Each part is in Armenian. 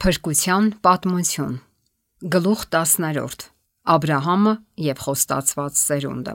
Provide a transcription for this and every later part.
Փրկության պատմություն։ Գլուխ 10. Աբրահամը եւ խոստացված սերունդը։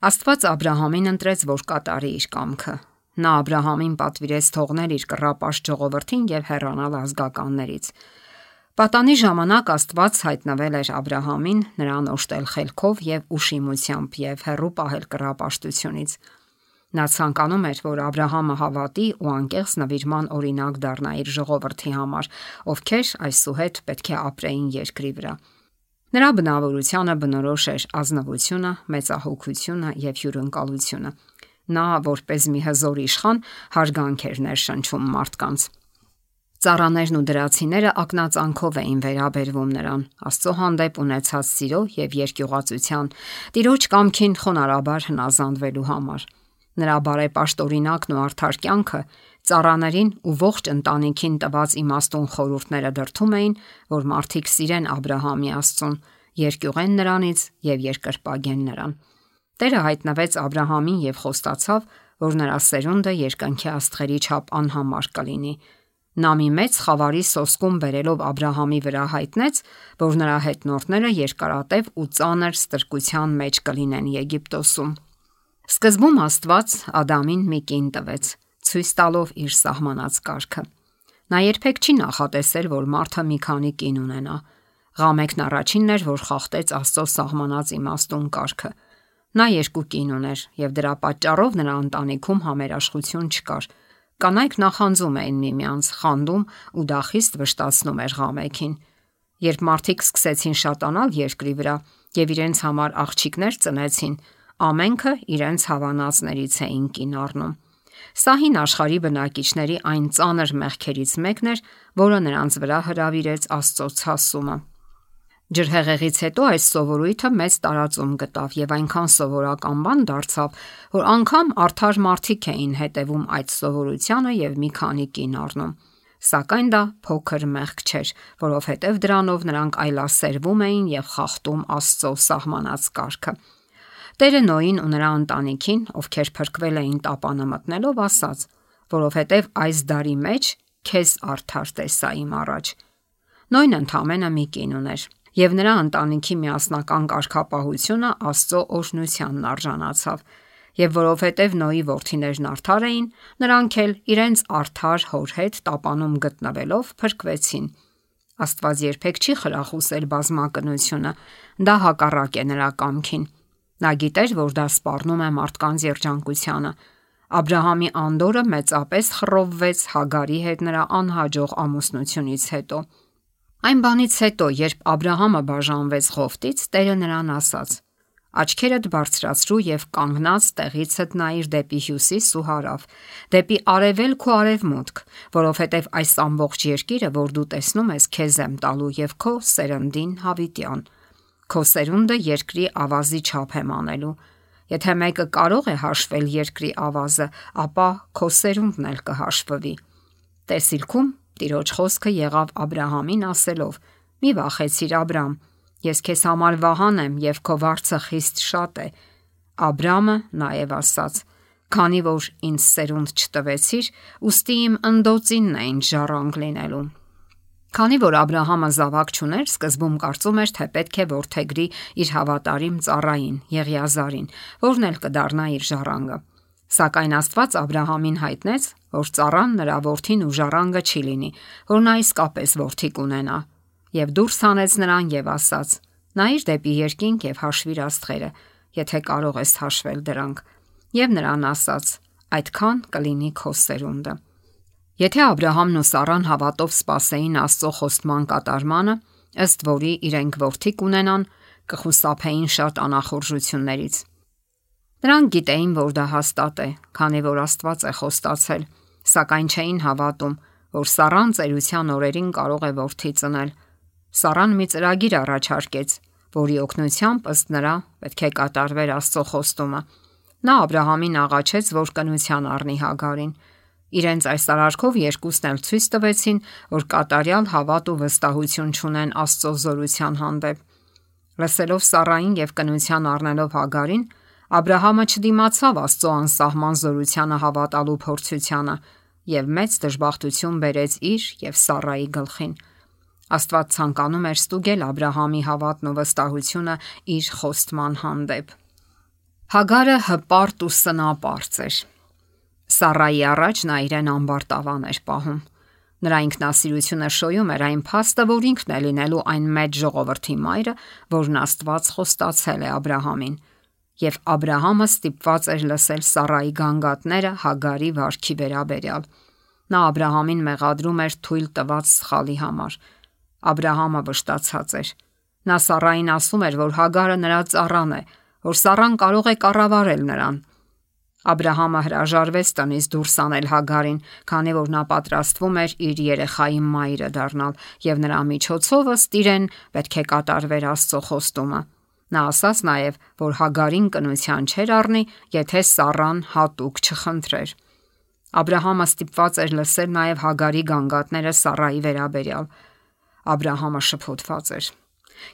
Աստված Աբրահամին ընտրեց, որ կատարի իր կամքը։ Նա Աբրահամին պատվիրեց թողնել իր կռապաշտ ժողովրդին եւ հեռանալ ազգականներից։ Պատանի ժամանակ Աստված հայտնվել էր Աբրահամին, նրան օժտել խելքով եւ ուշիմությամբ եւ հեռու պահել կռապաշտությունից։ Նա ցանկանում էր, որ Աբրահամը հավատի ու անկեղծ նվիրման օրինակ դառնա իր ժողովրդի համար, ովքեր այսուհետ պետք է ապրեին երկրի վրա։ Նրա բնավորությանը բնորոշ էր ազնվությունը, մեծահոգությունը եւ հյուրընկալությունը։ Նա, որպես մի հզոր իշխան, հարգանք էր ներշնչում մարդկանց։ Ծառաներն ու դրացիները ակնածանքով էին վերաբերվում նրան, Աստծո հանդեպ ունեցած սիրո եւ երկյուղածության, Տիրոջ կամքին խոնարհաբար հնազանդվելու համար։ Նրա բարեպաշտօրինակն ու արդար կյանքը ծառաներին ու ողջ ընտանիքին տված իմաստուն խորհուրդները դրդում էին, որ մարդիկ սիրեն Աբրահամի Աստծուն, երկյուղեն նրանից եւ երկրպագեն նրան։ Տերը հայտնվեց Աբրահամին եւ խոստացավ, որ նրա սերունդը երկնքի աստղերի չափ անհամար կլինի։ Նա մի մեծ խավարի սոսկում բերելով Աբրահամի վրա հայտնեց, որ նրա հետնորդները երկարատև ու ծանր ստրկության մեջ կլինեն Եգիպտոսում։ Սկզբում Աստված Ադամին մի կին տվեց, ցույց տալով իր սահմանած կարգը։ Նա երբեք չի նախատեսել, որ մարդը մի քանի կին ունենա։ Ղամեքն առաջինն էր, որ խախտեց Աստծո սահմանած իմաստուն կարգը։ Նա 2 կին ուներ, եւ դրա պատճառով նրա ընտանիքում համերաշխություն չկար։ Կանայք նախանձում էին միմյանց, խանդում ու դա խիստ վշտացնում էր ղամեքին։ Երբ մարդիկ սկսեցին շատանալ երկրի վրա եւ իրենց համար աղջիկներ ծնեցին, ամենքը իրենց հավանածներից էին կին առնում։ Սա հին աշխարհի բնակիչների այն ծանր մեղքերից մեկն էր, որը նրանց վրա հրավիրեց Աստծո ցասումը։ Ջրհեղեղից հետո այս սովորույթը մեծ տարածում գտավ եւ այնքան սովորական բան դարձավ, որ անգամ արդար մարդիկ էին հետևում այդ սովորությանը եւ մի քանի կին առնում։ Սակայն դա փոքր մեղք չէր, որովհետեւ դրանով նրանք այլասերվում էին եւ խախտում Աստծո սահմանած կարգը։ Տերը Նոյին ու նրա ընտանիքին, ովքեր փրկվել էին տապանը մտնելով, ասաց, որովհետև այս դարի մեջ քեզ արդար տեսա իմ առաջ։ Նոյն ընդամենը մի կին ուներ, եւ նրա ընտանիքի միասնական կարգապահությունը Աստծո օրհնությանն արժանացավ, եւ որովհետև Նոյի որդիներն արդար էին, նրանք էլ իրենց արդար հոր հետ տապանում գտնվելով փրկվեցին։ Աստված երբեք չի խրախուսել բազմակնությունը, դա հակառակ է նրա կամքին։ Նա գիտեր, որ դա սպառնում է մարդկանց երջանկությանը։ Աբրահամի անդորը մեծապես խռովվեց Հագարի հետ նրա անհաջող ամուսնությունից հետո։ Այն բանից հետո, երբ Աբրահամը բաժանվեց Ղովտից, Տերը նրան ասաց. «Աչքերդ բարձրացրու եւ կանգնած տեղիցդ նայիր դեպի հյուսիս ու հարավ, դեպի արևելք ու արևմուտք, որովհետեւ այս ամբողջ երկիրը, որ դու տեսնում ես, քեզ եմ տալու եւ քո սերնդին հավիտյան։ Քո սերունդը երկրի ավազի չափ եմ անելու։ Եթե մեկը կարող է հաշվել երկրի ավազը, ապա քո սերունդն էլ կհաշվվի»։ Տեսիլքում Տիրոջ խոսքը եղավ Աբրահամին ասելով. «Մի վախեցիր, Աբրամ, ես քեզ համար վահան եմ եւ քո վարձը խիստ շատ է»։ Աբրամը նաեւ ասաց. «Քանի որ ինձ սերունդ չտվեցիր, ուստի իմ ընդոցինն է ինձ ժառանգ լինելու»։ Քանի որ Աբրահամը զավակ չուներ, սկզբում կարծում էր, թե պետք է որդեգրի իր հավատարիմ ծառային Եղիազարին, որն էլ կդառնա իր ժառանգը։ Սակայն Աստված Աբրահամին հայտնեց, որ ծառան նրա որդին ու ժառանգը չի լինի, որ նա իսկապես որդի կունենա, եւ դուրս հանեց նրան եւ ասաց. «Նայիր դեպի երկինք եւ հաշվիր աստղերը, եթե կարող ես հաշվել դրանք»։ Եվ նրան ասաց. «Այդքան կլինի քո սերունդը»։ Եթե Աբրահամն ու Սառան հավատով սպասեին Աստծո խոստման կատարմանը, ըստ որի իրենք որդի կունենան, կխուսափեին շատ անախորժություններից։ Նրանք գիտեին, որ դա հաստատ է, քանի որ Աստված է խոստացել, սակայն չէին հավատում, որ Սառան ծերության օրերին կարող է որդի ծնել։ Սառան մի ծրագիր առաջարկեց, որի օգնությամբ ըստ նրա պետք է կատարվեր Աստծո խոստումը։ Նա Աբրահամին աղաչեց, որ կնության առնի Հագարին։ Իրենց այս արարքով երկուսն էլ ցույց տվեցին, որ կատարյալ հավատ ու վստահություն չունեն Աստծո զորության հանդեպ։ Լսելով Սառային եւ կնության առնելով Հագարին, Աբրահամը չդիմացավ Աստծո անսահման զորությանը հավատալու փորձությանը, եւ մեծ դժբախտություն բերեց իր եւ Սառայի գլխին։ Աստված ցանկանում էր ստուգել Աբ รา համի հավատն ու վստահությունը իր խոստման հանդեպ։ Հագարը հպարտ ու սնապարծ էր։ Սառայի առաջ նա իրեն ամբարտավան էր պահում։ Նրա ինքնասիրությունը շոյում էր այն փաստը, որ ինքն է լինելու այն մեծ ժողովրդի մայրը, որն Աստված խոստացել է Աբ รา համին։ Եվ Աբ รา համը ստիպված էր լսել Սառայի գանգատները Հագարի վարքի վերաբերյալ։ Նա Աբ รา համին մեղադրում էր թույլ տված սխալի համար։ Աբ รา համը վշտացած էր։ Նա Սառային ասում էր, որ Հագարը նրա ծառան է, որ Սառան կարող է կառավարել նրան։ Աբ รา համը հրաժարվեց տնից դուրս անել Հագարին, քանի որ նա պատրաստվում էր իր երեխայի մայրը դառնալ, եւ նրա միջոցով ըստ իրեն պետք է կատարվեր Աստծո խոստումը։ Նա ասաց նաև, որ Հագարին կնության չէր առնի, եթե Սառան հատուկ չխնդրեր։ Աբ รา համը ստիպված էր լսել նաև Հագարի գանգատները Սառայի վերաբերյալ։ Աբ รา համը շփոթված էր։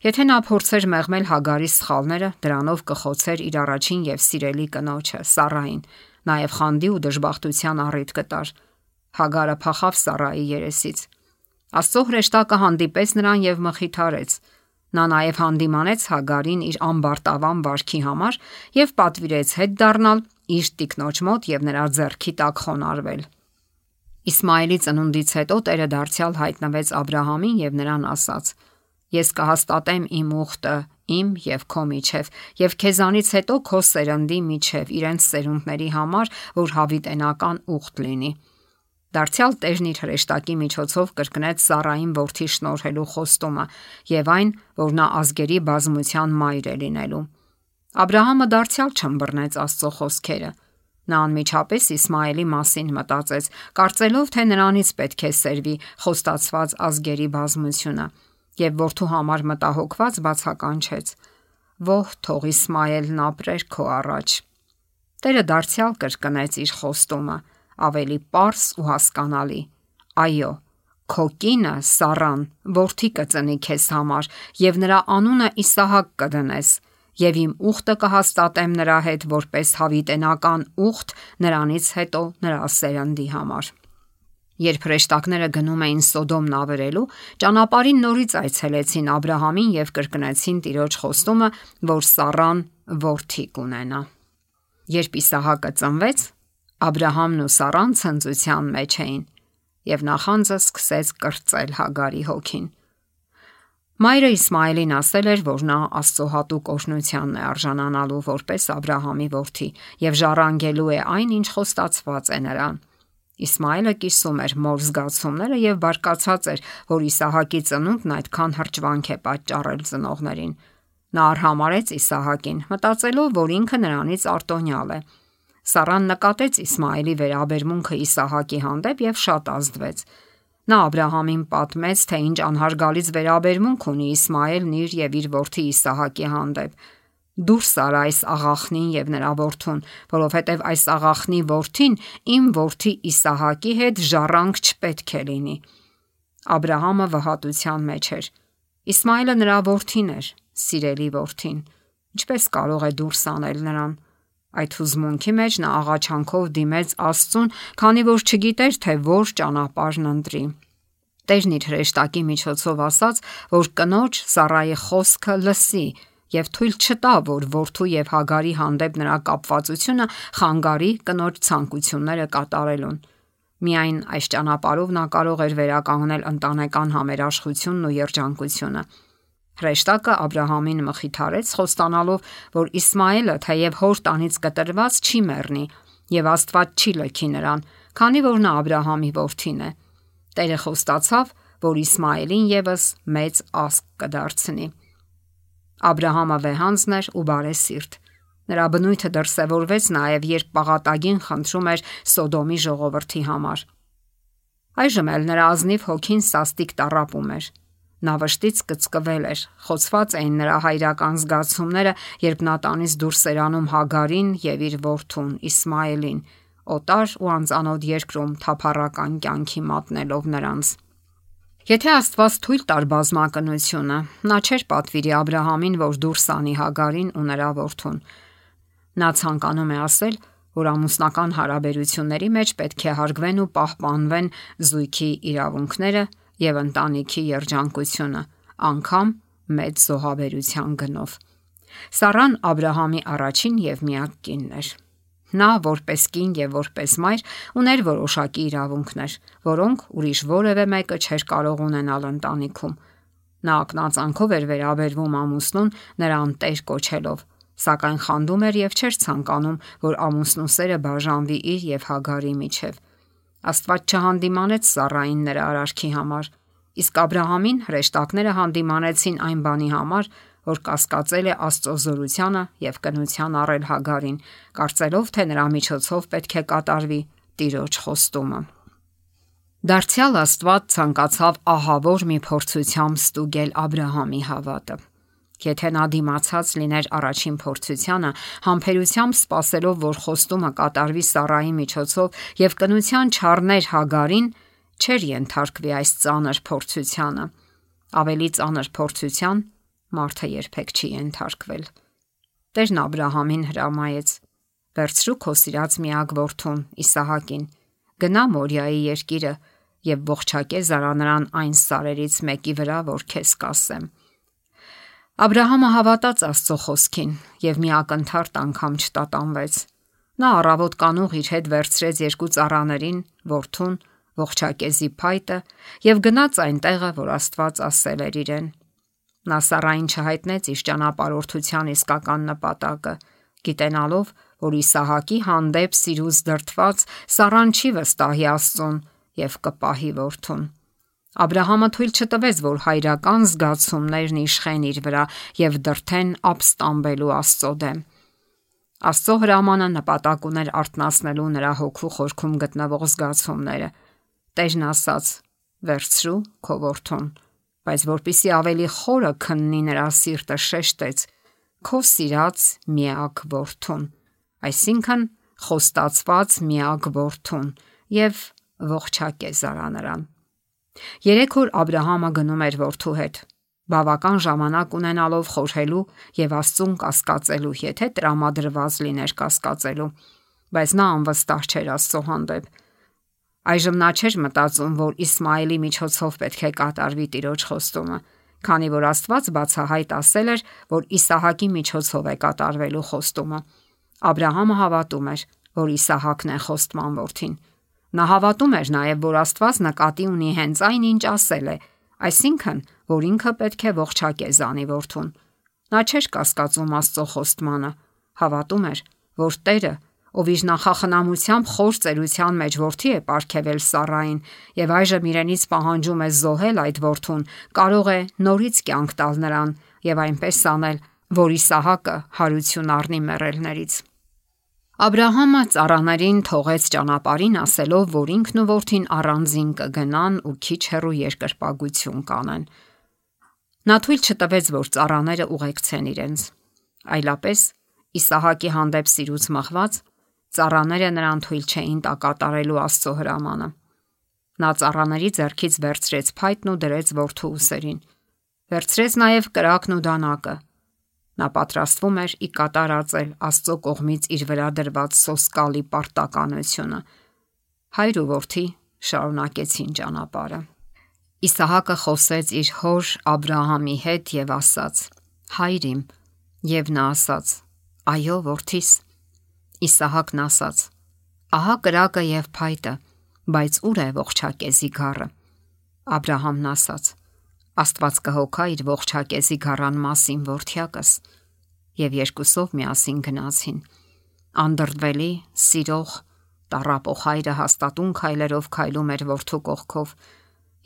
Եթե նա փորձեր մեղմել Հագարի սխալները, դրանով կխոցեր իր առաջին եւ սիրելի կնոջը Սառային, նաև խանդի ու դժբախտության առիթ կտար։ Հագարը փախավ Սառայի երեսից։ Աստծո հրեշտակը հանդիպեց նրան եւ մխիթարեց։ Նա նաև հանդիմանեց Հագարին իր ամբարտավան վարքի համար եւ պատվիրեց հետ դառնալ իր տիկնոջ մոտ եւ նրա ձեռքի տակ խոնարհվել։ Իսմայելի ծնունդից հետո Տերը դարձյալ հայտնվեց Աբ รา համին եւ նրան ասաց. Ես կհաստատեմ իմ ուխտը իմ եւ քո միջև եւ քեզանից հետո քո սերնդի միջև իրենց սերունդների համար, որ հավիտենական ուխտ լինի։ Դարձյալ Տերն իր հրեշտակի միջոցով կրկնեց Սառային որդի շնորհելու խոստումը եւ այն, որ նա ազգերի բազմության մայր է լինելու։ Աբ รา համը դարձյալ չըմբռնեց Աստծո խոսքերը։ Նա անմիջապես Իսմայելի մասին մտածեց, կարծելով, թե նրանից պետք է սերվի խոստացված ազգերի բազմությունը, եւ որդու համար մտահոգված բացականչեց. «Ո՛հ, թող Իսմայելն ապրեր քո առաջ»։ Տերը դարձյալ կրկնեց իր խոստումը, ավելի պարզ ու հասկանալի. «Այո, քո կինը Սառան որդի կծնի քեզ համար, եւ նրա անունը Իսահակ կդնես, եւ իմ ուխտը կհաստատեմ նրա հետ որպես հավիտենական ուխտ նրանից հետո նրա սերնդի համար»։ Երբ հրեշտակները գնում էին Սոդոմն ավերելու, ճանապարհին նորից այցելեցին Աբ รา համին եւ կրկնեցին Տիրոջ խոստումը, որ Սառան որդի կունենա։ Երբ Իսահակը ծնվեց, Աբ รา համն ու Սառան ցնծության մեջ էին, եւ նախանձը սկսեց կրծել Հագարի հոգին։ Մայրը Իսմայելին ասել էր, որ նա Աստծո հատուկ օրհնությանն է արժանանալու որպես Աբ รา համի որդի եւ ժառանգելու է այն, ինչ խոստացված է նրան։ Իսմայելը կիսում էր մոր զգացումները եւ բարկացած էր, որ Իսահակի ծնունդն այդքան հրճվանք է պատճառել ծնողներին։ Նա արհամարեց Իսահակին, մտածելով, որ ինքը նրանից արտոնյալ է։ Սառան նկատեց Իսմայելի վերաբերմունքը Իսահակի հանդեպ եւ շատ ազդվեց։ Նա Աբ รา համին պատմեց, թե ինչ անհարգալից վերաբերմունք ունի Իսմայելն իր եւ իր որդի Իսահակի հանդեպ։ Դուրս արա այս աղախնին եւ նրա որդուն, որովհետեւ այս աղախնի որդին իմ որդի Իսահակի հետ ժառանգ չպետք է լինի։ Աբ รา համը վհատության մեջ էր։ Իսմայելը նրա որդին էր, սիրելի որդին։ Ինչպես կարող է դուրս անել նրան։ Այդ հուզմունքի մեջ նա աղաչանքով դիմեց Աստծուն, քանի որ չգիտեր, թե որ ճանապարհն ընտրի։ Տերն իր հրեշտակի միջոցով ասաց, որ կնոջ Սառայի խոսքը լսի եւ թույլ չտա, որ որդու եւ Հագարի հանդեպ նրա կապվածությունը խանգարի կնոջ ցանկությունները կատարելուն։ Միայն այս ճանապարհով նա կարող էր վերականգնել ընտանեկան համերաշխությունն ու երջանկությունը։ Հրեշտակը Աբ รา համին մխիթարեց, խոստանալով, որ Իսմայելը թեև հոր տանից կտրված չի մեռնի եւ Աստված չի լքի նրան, քանի որ նա Աբ รา համի որդին է։ Տերը խոստացավ, որ Իսմայելին եւս մեծ ազգ կդարձնի։ Աբ รา համը վեհանձն էր ու բարեսիրտ։ Նրա բնույթը դրսևորվեց նաև, երբ պաղատագին խնդրում էր Սոդոմի ժողովրդի համար։ Այժմ էլ նրա ազնիվ հոգին սաստիկ տառապում էր։ Նա վշտից կծկվել էր, խոցված էին նրա հայրական զգացումները, երբ նա տանից դուրս էր անում Հագարին եւ իր որդուն Իսմայելին, օտար ու անծանոթ երկրում թափառական կյանքի մատնելով նրանց։ Եթե Աստված թույլ տար բազմակնությունը, նա չէր պատվիրի Աբ รา համին, որ դուրս անի Հագարին ու նրա որդուն։ Նա ցանկանում է ասել, որ ամուսնական հարաբերությունների մեջ պետք է հարգվեն ու պահպանվեն զույգի իրավունքները եւ ընտանիքի երջանկությունը, անգամ մեծ զոհաբերության գնով։ Սառան Աբ รา համի առաջին եւ միակ կինն էր։ Նա որպես կին եւ որպես մայր ուներ որոշակի իրավունքներ, որոնք ուրիշ որևէ մեկը չէր կարող ունենալ ընտանիքում։ Նա ակնածանքով էր վերաբերվում ամուսնուն նրան տեր կոչելով, սակայն խանդում էր եւ չէր ցանկանում, որ ամուսնու սերը բաժանվի իր եւ Հագարի միջև։ Աստված չհանդիմանեց Սառային նրա արարքի համար, իսկ Աբ รา համին հրեշտակները հանդիմանեցին այն բանի համար, որ կասկածել է Աստծո զորությանը եւ կնության առել Հագարին, կարծելով, թե նրա միջոցով պետք է կատարվի Տիրոջ խոստումը։ Դարձյալ Աստված ցանկացավ ահավոր մի փորձությամբ ստուգել Աբ รา համի հավատը։ Եթե նա դիմացած լիներ առաջին փորձությանը, համբերությամբ սպասելով, որ խոստումը կատարվի Սառայի միջոցով եւ կնության չառներ Հագարին, չէր ենթարկվի այս ծանր փորձությանը։ Ավելի ծանր փորձության մարդը երբեք չի ենթարկվել։ Տերն Աբ รา համին հրամայեց. «Վերցրու քո սիրած միակ որդուն Իսահակին, գնա Մորիայի երկիրը եւ ողջակե զարանրան այն սարերից մեկի վրա, որ քեզ կասեմ»։ Աբ รา համը հավատաց Աստծո խոսքին եւ մի ակնթարթ անգամ չտատանվեց։ Նա առավոտ կանուղ իր հետ վերցրեց երկու ծառաներին, որդուն, ողջակեզի փայտը եւ գնաց այն տեղը, որ Աստված ասել էր իրեն։ Նա Սառային չհայտնեց իր ճանապարհորդության իսկական նպատակը, գիտենալով, որ Իսահակի հանդեպ սիրուց դրդված Սառան չի վստահի Աստծուն եւ կպահի որդուն։ Աբ รา համը թույլ չտվեց, որ հայրական զգացումներն իշխեն իր վրա եւ դրթեն ապստամբելու Աստծո դեմ։ Աստծո հրամանը նպատակ ուներ արթնացնելու նրա հոգու խորքում գտնվող զգացումները։ Տերն ասաց. «Վերցրու քո որդուն», բայց որpիսի ավելի խորը քննի նրա սիրտը շեշտեց. «Քո սիրած միակ որդուն», այսինքն խոստացված միակ որդուն, եւ ողջակե զարանրան։ 3 օր Աբ รา համը գնում էր որդու հետ, բավական ժամանակ ունենալով խորհելու եւ Աստծուն կասկածելու, եթե տրամադրված լիներ կասկածելու, բայց նա անվստահ չէր Աստծո հանդեպ։ Այժմ նա չէր մտածում, որ Իսմայելի միջոցով պետք է կատարվի Տիրոջ խոստումը, քանի որ Աստված բացահայտ ասել էր, որ Իսահակի միջոցով է կատարվելու խոստումը։ Աբ รา համը հավատում էր, որ Իսահակն է խոստման որդին։ Նա հավատում էր նաև, որ Աստված նկատի ունի հենց այն, ինչ ասել է, այսինքն, որ ինքը պետք է ողջակե զանի որդուն։ Նա չէր կասկածում Աստծո խոստմանը, հավատում էր, որ Տերը, ով իր նախախնամությամբ խոր ծերության մեջ որդի է պարգևել Սառային եւ այժմ իրենից պահանջում է զոհել այդ որդուն, կարող է նորից կյանք տալ նրան եւ այնպես անել, որ Իսահակը հարություն առնի մեռելներից։ Աբ รา համը ծառաներին թողեց ճանապարհին, ասելով, որ ինքն ու որդին առանձին կգնան ու քիչ հեռու երկրպագություն կանեն։ Նա թույլ չտվեց, որ ծառաները ուղեկցեն իրենց, այլապես Իսահակի հանդեպ սիրուց մղված ծառաները նրան թույլ չէին տա կատարելու Աստծո հրամանը։ Նա ծառաների ձեռքից վերցրեց փայտն ու դրեց որդու ուսերին։ Վերցրեց նաև կրակն ու դանակը։ Նա պատրաստվում էր ի կատարածել Աստծո կողմից իր վրա դրված սոսկալի պարտականությունը։ Հայր ու որդի շարունակեցին ճանապարհը։ Իսահակը խոսեց իր հոր Աբ รา համի հետ եւ ասաց. «Հայր իմ», եւ նա ասաց. «Այո, որդիս»։ Իսահակն ասաց. «Ահա կրակը եւ փայտը, բայց ուր է ողջակեզի գառը»։ Աբ รา համն ասաց. «Աստված կհոգա իր ողջակեզի գառան մասին, որդյակս»։ Եվ երկուսով միասին գնացին։ Անդրդվելի, սիրող, տառապող հայրը հաստատուն քայլերով քայլում էր որդու կողքով։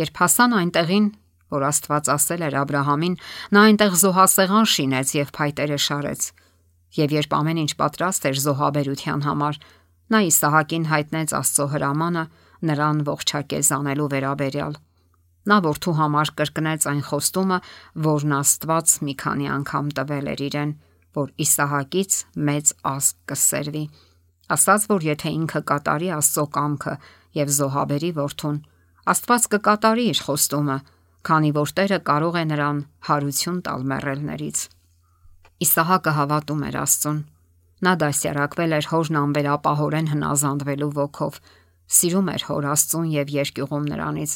Երբ հասան այնտեղին, որ Աստված ասել էր Աբ รา համին, նա այնտեղ զոհասեղան շինեց եւ փայտերը շարեց։ Եվ երբ ամեն ինչ պատրաստ էր զոհաբերության համար, նա Իսահակին հայտնեց Աստծո հրամանը նրան ողջակեզ անելու վերաբերյալ։ Նա որդու համար կրկնեց այն խոստումը, որն Աստված մի քանի անգամ տվել էր իրեն, որ Իսահակից մեծ ազգ կսերվի։ Ասաց, որ եթե ինքը կատարի Աստծո կամքը եւ զոհաբերի որդուն, Աստված կկատարի իր խոստումը, քանի որ Տերը կարող է նրան հարություն տալ մեռելներից։ Իսահակը հավատում էր Աստծուն։ Նա դասյարակվել էր հորն անվերապահորեն հնազանդվելու ոգով, սիրում էր հոր Աստծուն եւ երկյուղում նրանից։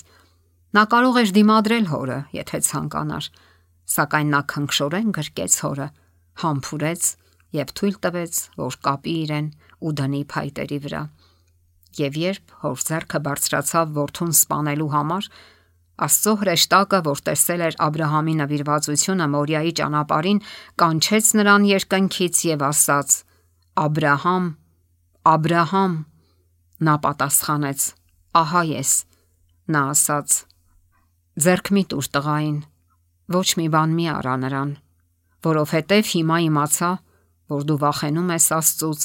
Նա կարող էր դիմադրել հորը, եթե ցանկանար, սակայն նա քնքշորեն գրկեց հորը, համբուրեց եւ թույլ տվեց, որ կապի իրեն ու դնի փայտերի վրա։ Եվ երբ հոր ձեռքը բարձրացավ որդուն սպանելու համար, Աստծո հրեշտակը, որ տեսել էր Աբ รา համի նվիրվածությունը Մորիայի ճանապարհին, կանչեց նրան երկնքից եւ ասաց. «Աբրահամ, Աբրահամ»։ Նա պատասխանեց. «Ահա ես»։ Նա ասաց. «Ձեռք մի տուր տղային, ոչ մի բան մի արա նրան, որովհետև հիմա իմացա, որ դու վախենում ես Աստծուց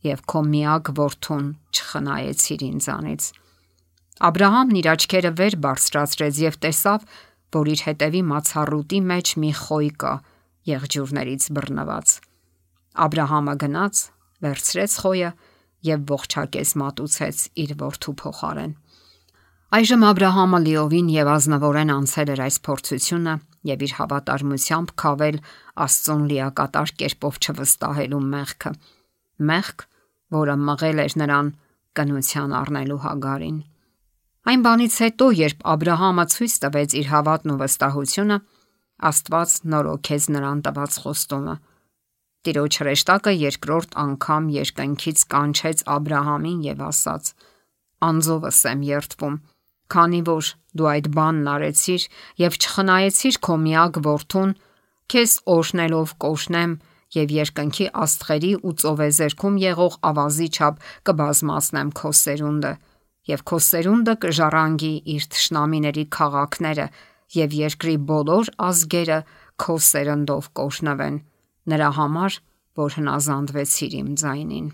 եւ քո միակ որդուն չխնայեցիր ինձանից»։ Աբ รา համն իր աչքերը վեր բարձրացրեց եւ տեսավ, որ իր հետևի մացառուտի մեջ մի խոյ կա, եղջյուրներից բռնված։ Աբ รา համը գնաց, վերցրեց խոյը եւ ողջակեց մատուցեց իր որդու փոխարեն։ Այժմ Աբ รา համը լիովին եւ ազնվորեն անցել էր այս փորձությունը եւ իր հավատարմությամբ քավել Աստծուն լիակատար կերպով չվստահելու մեղքը, մեղք, որը մղել էր նրան կնության առնելու Հագարին։ Այն բանից հետո, երբ Աբ รา համը ցույց տվեց իր հավատն ու վստահությունը, Աստված նորոգեց նրան տված խոստումը։ Տիրոջ հրեշտակը երկրորդ անգամ երկնքից կանչեց Աբ รา համին եւ ասաց. «Անձովս եմ երդվում, քանի որ դու այդ բանն արեցիր եւ չխնայեցիր քո միակ որդուն, քեզ օրհնելով կօրհնեմ եւ երկնքի աստղերի ու ծովեզերքում եղող ավազի չափ կբազմացնեմ քո սերունդը, եւ քո սերունդը կժառանգի իր թշնամիների քաղաքները եւ երկրի բոլոր ազգերը քո սերնդով կօրհնվեն, նրա համար, որ հնազանդվեցիր իմ ձայնին»։